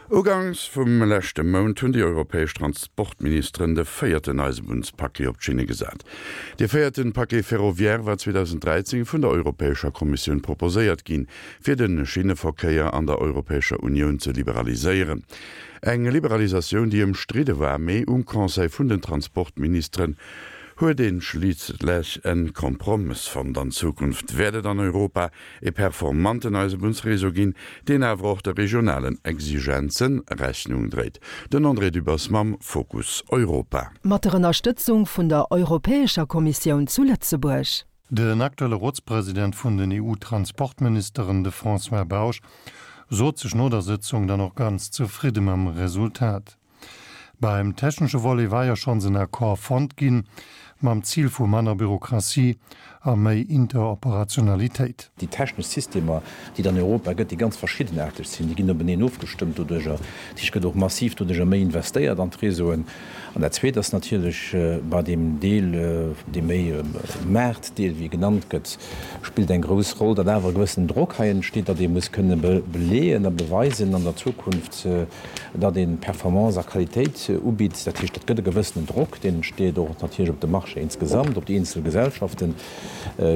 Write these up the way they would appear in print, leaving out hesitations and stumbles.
Ugangs vum leschte Mount hunn déi europäesch Transportministeren de véierten Eisebunnspaquet op d'Schinne gesat. Dee véierten Paquet ferroviaire war 2013 vun der Europäescher Kommissioun proposéiert ginn, fir de Schinneverkéier an der Europäescher Unioun ze liberaliséieren. Eng Liberalisatioun, déi ëmstridde war, mee um Conseil vun den Transportministeren huet ee schliisslech en Kompromëss fonnt. An Zukunft wäert et an Europa e performanten Eisebunnsreseau ginn, deen awer och de regionalen Exigenze Rechnung dréit. Den André Dübbers mam Fokus Europa. Mat der Ënnerstëtzung vun der Europäescher Kommissioun zu Lëtzebuerg. Den aktuelle Rotspresident vun den EU-Transportministeren, de François Bausch, sot sech no der Sëtzung dann och ganz zefridde mam Resultat. Beim technesche Volet war jo schonns en Accord fonnt ginn, mam Zil vu manner Bürokratie a méi Interoperationalitéit. Déi technesch Systemer, déi et an Europa gëtt, déi ganz verschiddenaarteg sinn, déi ginn openeen ofgestëmmt doduerjer. Dat heescht, et gëtt och massiv doduerjer méi investéiert an d'Réseauen. An dat Zweet ass natierlech bei deem Deel, dee méi Maartdeel, wéi e genannt gëtt, spillt eng grouss Roll, datt awer e gewëssenen Drock hei entsteet, datt ee muss kënne beleeën a beweisen an der Zukunft, datt ee Performance a Qualitéit ubitt. Dat heescht, dat gëtt e gewëssenen Drock, deen entsteet och natierlech op de Marché insgesamt, op déi eenzel Gesellschaften,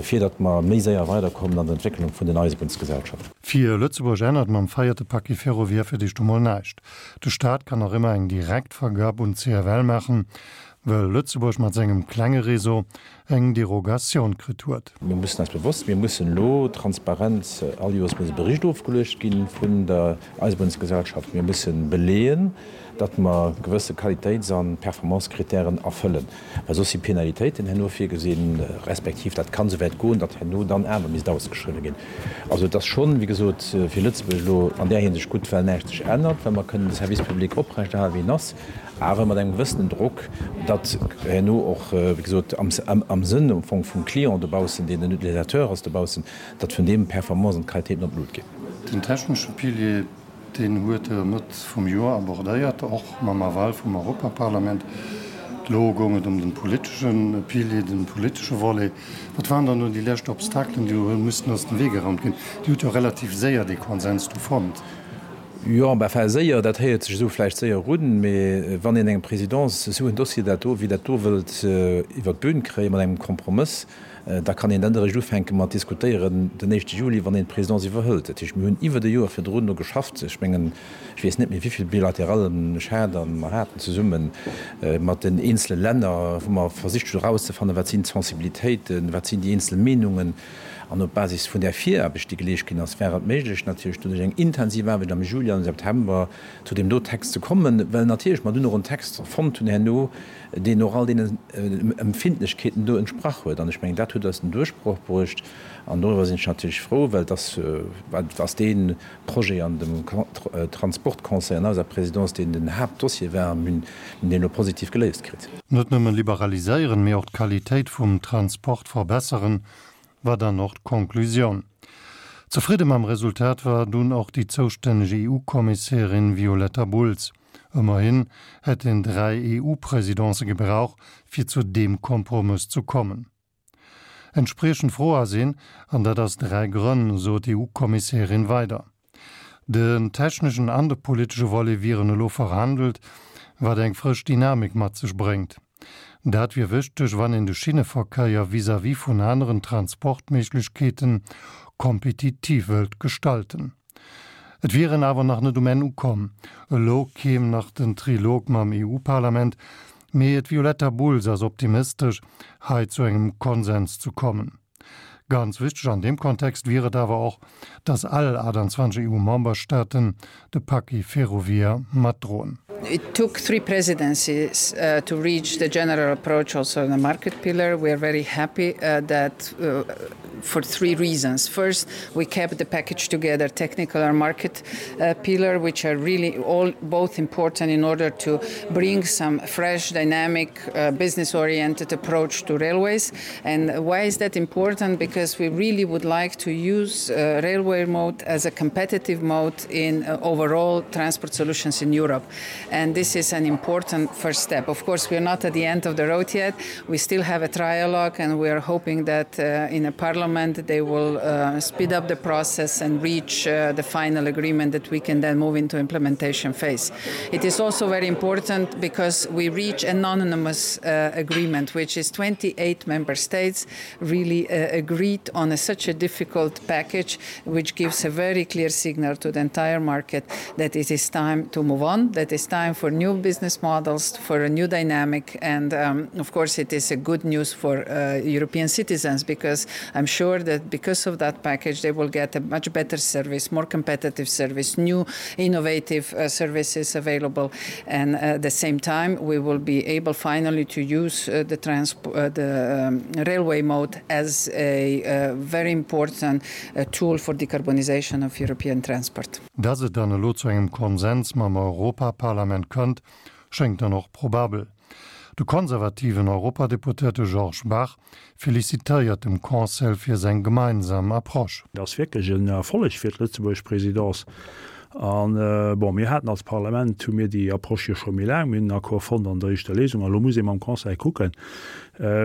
fir datt mer méi séier weiderkommen an der Entwécklung vun den Eisebunnsgesellschaften. Fir Lëtzebuerg ännert mam véierte Paquet ferroviaire fir d'éischt emol näischt. De Staat kann nach ëmmer eng Direktvergab un d'CFL maachen, well Lëtzebuerg mat sengem klenge Réseau eng Derogatioun kritt huet. Mir mussen eis bewosst, mir mussen elo transparent, all Joers muss e Bericht ofgeluecht gi vun der Eisebunnsgesellschaft. Mir mussen beleeën, datt mer gewësse Qualitéits a Performancekritären erfëllen, well soss si Penalitéiten herno virgesinn, respektiv dat kann esouwäit goen, datt herno dann awer misst ausgeschriwwen ginn. Also et ass schonn, wéi gesot, fir Lëtzebuerg elo an där Hinsicht gutt, well näischt sech ännert, well mer kënnen de Service public oprechterhalen, wéi en ass, awer mat engem gewëssenen Drock, datt herno och, wéi gesot, am Sënn am Fong vum Client dobaussen, deen den Utilisateur ass dobaussen, datt vun deem d'Performance an d'Qualitéiten an d'Lut ginn. Den technesche Pilier, deen huet Der Mëtt vum Joer abordéiert, och mam Aval vum Europaparlament. Elo goung et ëm de politesche Pilier, de politesche Volet. Wat waren dann elo déi lescht Obstakelen, déi elo hu müssten aus dem Wee geraumt ginn? Dir hutt jo relativ séier dee Konsens du fonnt. Jo, enfin séier, dat héiert sech esou vläicht séier un, mee wann een engem Présidence esou en Dossier dat do wéi dat do wëllt iwwert d'Bün kréie mat engem Kompromëss, da kann een dann eréischt ufänke mat diskutéieren den éischte Juli, wann een d'Présidence iwwerhëlt. Dat heescht, mir hunn iwwert e Joer virdrun do geschafft. Ech mengen, ech weess net méi wéi vill Bilaterallen ech hat a mer haten zesumme mat den eenzele Länner, wou mer versicht hunn erauszefannen, wat sinn d'Sensibilitéiten, wat sinn déi eenzel Meenungen. An op Basis vun där Viraarbecht, déi geleescht ginn ass, war et méiglech natierlech doduerch eng intensiv Aarbecht am Juli an am September zu deem do Text ze kommen, well natierlech mer dunn och en Text fonnt hunn herno, deen och all deenen Empfindlechkeeten do entsprach huet. An ech mengen, dat huet eis den Duerchbroch bruecht. An doriwwer sinn ech natierlech frou, well et ass, et ass dee Projet an dem Transportconseil an eiser Présidence, deen den Haaptdossier war, a mir hunn deen elo positiv geléist kritt. Net nëmme liberaliséieren, mee och d'Qualitéit vum Transport verbesseren, war dann och d'Konklusioun. Zefridde mam Resultat war dunn och déi zoustänneg EU-Kommissärin Violetta Bulc. Ëmmerhin hätt een 3 EU-Presidencë gebrauch, fir zu deem Kompromëss zu kommen. Entspriechend frou ass een, an dat aus 3 Grënn, sot d'EU-Kommissärin weider. Den techneschen an de politesche Volet wieren elo verhandelt, wat eng frësch Dynamik mat sech bréngt. Dat wier wichteg, wann een de Schinneverkéier vis-à-vis vun aneren Transportméiglechkeeten kompetitiv wëllt gestalten. Et wier een awer nach net um Enn ukomm. Elo kéim nach den Trilog mam EU-Parlament, mee d'Violetta Bulc ass optimistesch, hei zu engem Konsens zu kommen. Ganz wichteg an deem Kontext wier et awer och, datt all 28 EU-Memberstaaten de Paquet ferroviaire matdroen. It took three presidencies to reach the general approach also on the market pillar. We are very happy that for three reasons. First, we kept the package together, technical and market pillar, which are really all both important in order to bring some fresh, dynamic, business-oriented approach to railways. And why is that important? Because. because we really would like to use uh, railway mode as a competitive mode in uh, overall transport solutions in Europe. And this is an important first step. Of course, we are not at the end of the road yet. We still have a trialogue and we are hoping that uh, in a parliament they will uh, speed up the process and reach uh, the final agreement that we can then move into implementation phase. It is also very important because we reach an anonymous uh, agreement, which is 28 member states really uh, agreed on a, such a difficult package, which gives a very clear signal to the entire market that it is time to move on, that it's time for new business models, for a new dynamic. And um, of course, it is a good news for uh, European citizens because I'm sure that because of that package, they will get a much better service, more competitive service, new innovative uh, services available. And uh, at the same time, we will be able finally to use uh, the, uh, the um, railway mode as a uh, very important uh, tool for decarbonization of European transport. Dass et dann elo zu engem Konsens mam Europaparlament kënnt, schéngt dann och probabel. De konservativen Europadeputéierte Georges Bach felicitéiert dem Conseil fir seng gemeinsam Approche. Et ass wierklech en Erfolleg fir d'Lëtzebuergesch Présidence. An, bon, mir haten als Parlament, hu mir déi Approche jo scho méi laang, mir hunn en Accord fonnt an der éischter Lesung a lo muss ee mam Conseil kucken.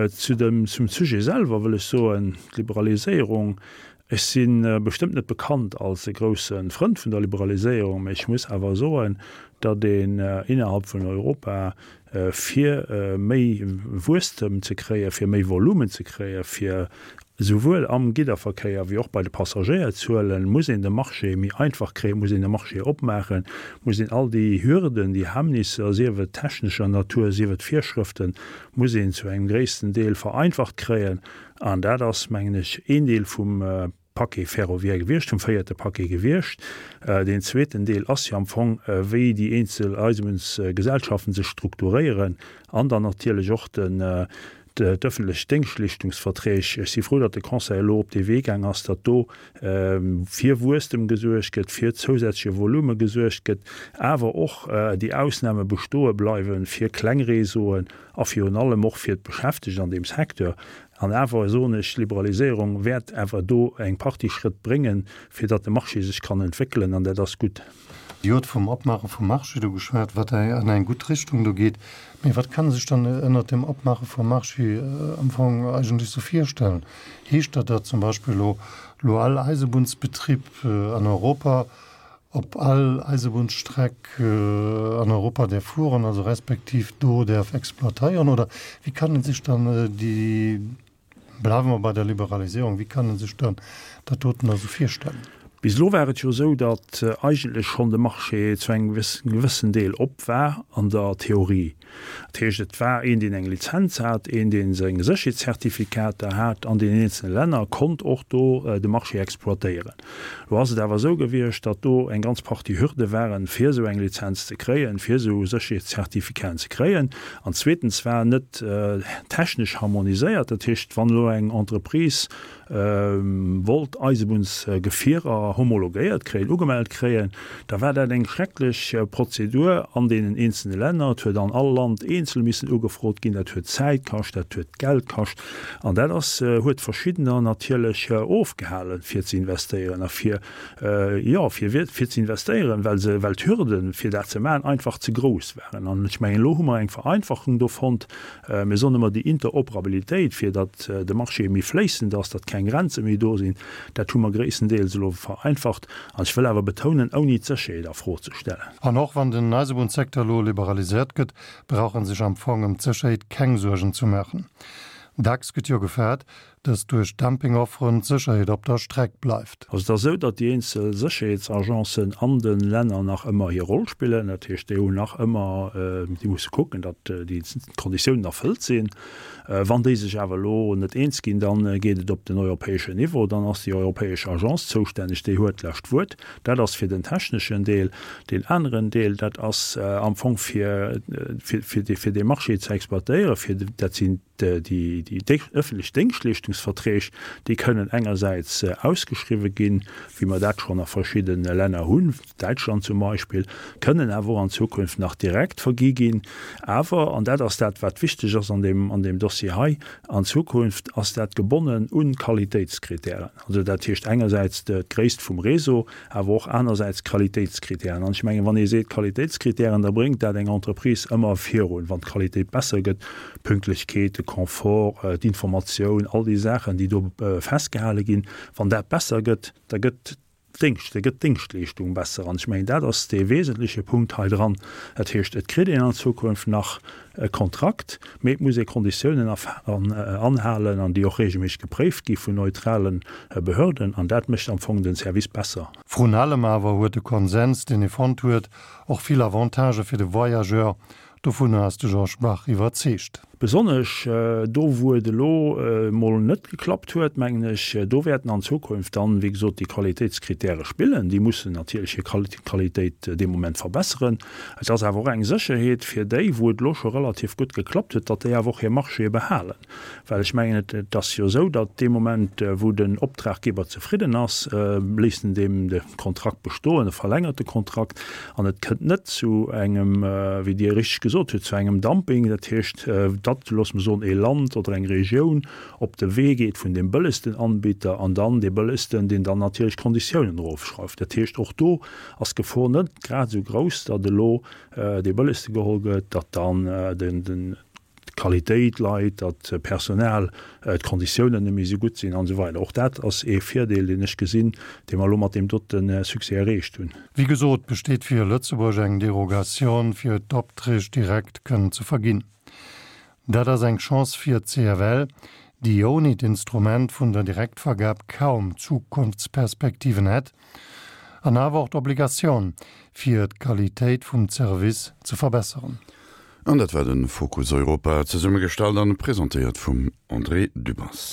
Zu dem, zum Sujet selwer wëll ech soen, d'Liberaliséierung, Ech si bestëmmt net bekannt als e grousse Frënd vun der Liberaliséierung, mä ech muss awer soen, datt een innerhalb vun Europa, fir méi Wuesstem ze kréien, fir méi Volumen ze kréien, fir esouwuel am Gidderverkéier wéi och bei de Passagéierzuelen, muss een de Marché méi einfach kréien, muss een de Marché opmaachen, muss een all déi Hürden, déi Hemmnisser, sief et technescher Natur, sief et Virschrëften, muss een zu engem gréissten Deel vereinfacht kréien. An dat ass, mengen ech, een Deel vum Paquet ferroviaire gewiescht, vum véierte Paquet gewiescht. Deen zweeten Deel ass jo am Fong, wéi déi eenzel Eisebunnsgesellschaften sech strukturéieren an dann natierlech och den, d'öffentlech Déngschtleeschtungsverträg. Ech si frou, datt de Conseil elo op dee Wee gaang ass, datt do fir Wuesstem gesuergt gëtt, fir zousätzleche Volume gesuergt gëtt, awer och déi Ausname bestoe bleiwe fir kleng Réseauen a virun allem och fir d'Beschäftegt an deem Secteur. An awer soen ech, d'Liberaliséierung wäert awer do eng Partie Schrëtt bréngen, fir datt de Marché sech kann entwéckelen, an dat ass gutt. Dir hutt vum Opmaache vum Marché do geschwat, wat an eng gutt Richtung do geet. Mee wat kann ee sech dann ënnert dem Opmaache vum Marché am Fong eigentlech sou virstellen? Heescht dat, datt zum Beispill elo elo all Eisebunnsbetrib an Europa op all Eisebunnsstreck an Europa däerf fueren, also respektiv do däerf exploitéieren? Oder wéi kann ee sech dann déi, bleiwe mer bei der Liberaliséierung, wéi kann ee sech dann dat doten da sou virstellen? Bis elo war et jo esou, datt eigentlech schonn de Marché zu engem gewëssen Deel op war an der Theorie. Dat heescht, et war een, deen eng Lizenz hat, een, dee seng Sécherheetszertifikater hat an deenen eenzele Länner, konnt och do de Marché exploitéieren. Elo ass et awer esou gewiescht, datt do eng ganz Partie Hürde waren, fir esou eng Lizenz ze kréien, fir esou Sécherheetszertifikaten ze kréien. An zweetens war net technesch harmoniséiert. Dat heescht, wann elo eng Entreprise wollt Eisebunnsgefierer homologéiert kréien, ugemellt kréien, da war dat eng schrecklech Prozedur an deenen eenzelne Länner. Et huet an all Land eenzel missen ugefrot ginn. Dat huet Zäit kascht, dat huet Geld kascht an dat ass, huet Verschiddener natierlech ofgehalen, fir ze investéieren a fir, jo, fir, fir ze investéieren, well se, well d'Hürden, fir dat ze maachen, einfach ze grouss waren. An ech mengen, elo hu mer eng Vereinfachung do fonnt, Mir soen ëmmer, déi Interoperabilitéit, fir datt de Marché méi fléissend ass, datt keng Grenze méi do sinn, dat hu mer gréisstendeels elo vereinfacht. An ech wëll awer betounen, ouni d'Sécherheet a Fro ze stellen. An och wann den Eisebunnssecteur elo liberaliséiert gëtt, brauch en sech am Fong ëm d'Sécherheet keng Suergen zu maachen. Dacks gëtt jo gefaart, dass duerch Dumpingofferen d'Sécherheet op der Streck bleift. Also et ass esou, datt déi eenzel Sécherheetsagencen an de Länner nach ëmmer hir Roll spillen. Dat heescht, déi hunn nach ëmmer, déi musse kucken, datt déi Konditiounen erfëllt sinn. Wann déi sech awer elo net eens ginn, da geet et op den europäeschen Niveau. Dann ass déi europäesch Agence zoustänneg, déi huet d'lescht Wuert. Dat ass fir den techneschen Deel. Deen aneren Deel, dat ass am Fong fir, fir, fir dee Marché ze exploitéieren, fir, dat sinn, déi ëffentlech Déngschtleeschtungsverträg. Ophandlungsverträg, déi kënnen engersäits ausgeschriwwen ginn, wéi mer dat schonn a verschidde Länner hunn, Däitschland zum Beispill, kënnen awer och an Zukunft nach direkt vergi ginn. Awer, an dat ass dat, wat wichteg ass an deem, an deem Dossier hei, an Zukunft ass dat gebonnen un Qualitéitskritären. Also dat heescht engersäits d'Gréisst vum Réseau, awer och anersäits Qualitéitskritären. An ech mengen, wann ee seet Qualitéitskritären, da bréngt dat eng Entreprise ëmmer virun, wann d'Qualitéit besser gëtt, d'Pünktlechkeet, de Confort, d'Informatioun, all déi Saachen, déi do festgehale ginn, wann dat besser gëtt, da gëtt Déngscht, da gëtt d'Déngschtleeschtung besser. An ech mengen, dat ass dee wesentleche Punkt hei dran. Dat heescht, et kritt een an Zukunft nach e Kontrakt, mee et muss ee Konditiounen anhalen an déi och regelméisseg gepréift gi vun neutrale Behörden. An dat mécht am Fong den Service besser. Vrun allem awer huet de Konsens, deen ee fonnt huet, och vill Avantagë fir de Voyageur, Dovunner ass de Georges Bach iwwerzeegt. Besonnesch do, wou et elo emol net geklappt huet, mengen ech, do wäerten an Zukunft dann, wéi gesot, déi Qualitéitskritäre spillen. Déi mussen natierlech hir Qualitéit dee Moment verbesseren. Et ass awer och eng Sécherheet fir déi, wou et elo scho relativ gutt geklappt huet, datt déi awer och hir Marchéë behalen. Well ech mengen, et ass jo esou, datt dee Moment, wou den Optraggeber zefridden ass, léisst en deem de Kontrakt bestoen, e verlängert de Kontrakt an et kënnt net zu engem, wéi Dir richteg gesot hutt, zu engem Dumping. Dat heescht, datt, loosse mer soen, ee Land oder eng Regioun op de Wee geet vun deem bëllegsten Anbieter an dann dee bëllegsten, deen dann natierlech d'Konditiounen erofschrauft. Dat heescht, och do ass d'Gefor net grad esou grouss, datt elo dee bëllegste geholl gëtt, datt dann den, d'Qualitéit leit, datt d'Personal, d'Konditiounen net méi esou gutt sinn an esou weider. Och dat ass ee Virdeel, deen ech gesinn, dee mer elo mat deem dote Succès erreecht hunn. Wéi gesot besteet fir Lëtzebuerg eng Derogation, fir d'Opträg direkt kënnen ze verginn. Dat ass eng Chance fir d'CFL, déi ouni d'Instrument vun der Direktvergab kaum Zukunftsperspektiven hätt, an awer och d'Obligatioun, fir d'Qualitéit vum Zervice ze verbesseren. An dat war de Fokus Europa, zesummegestallt an presentéiert vum André Dübbers.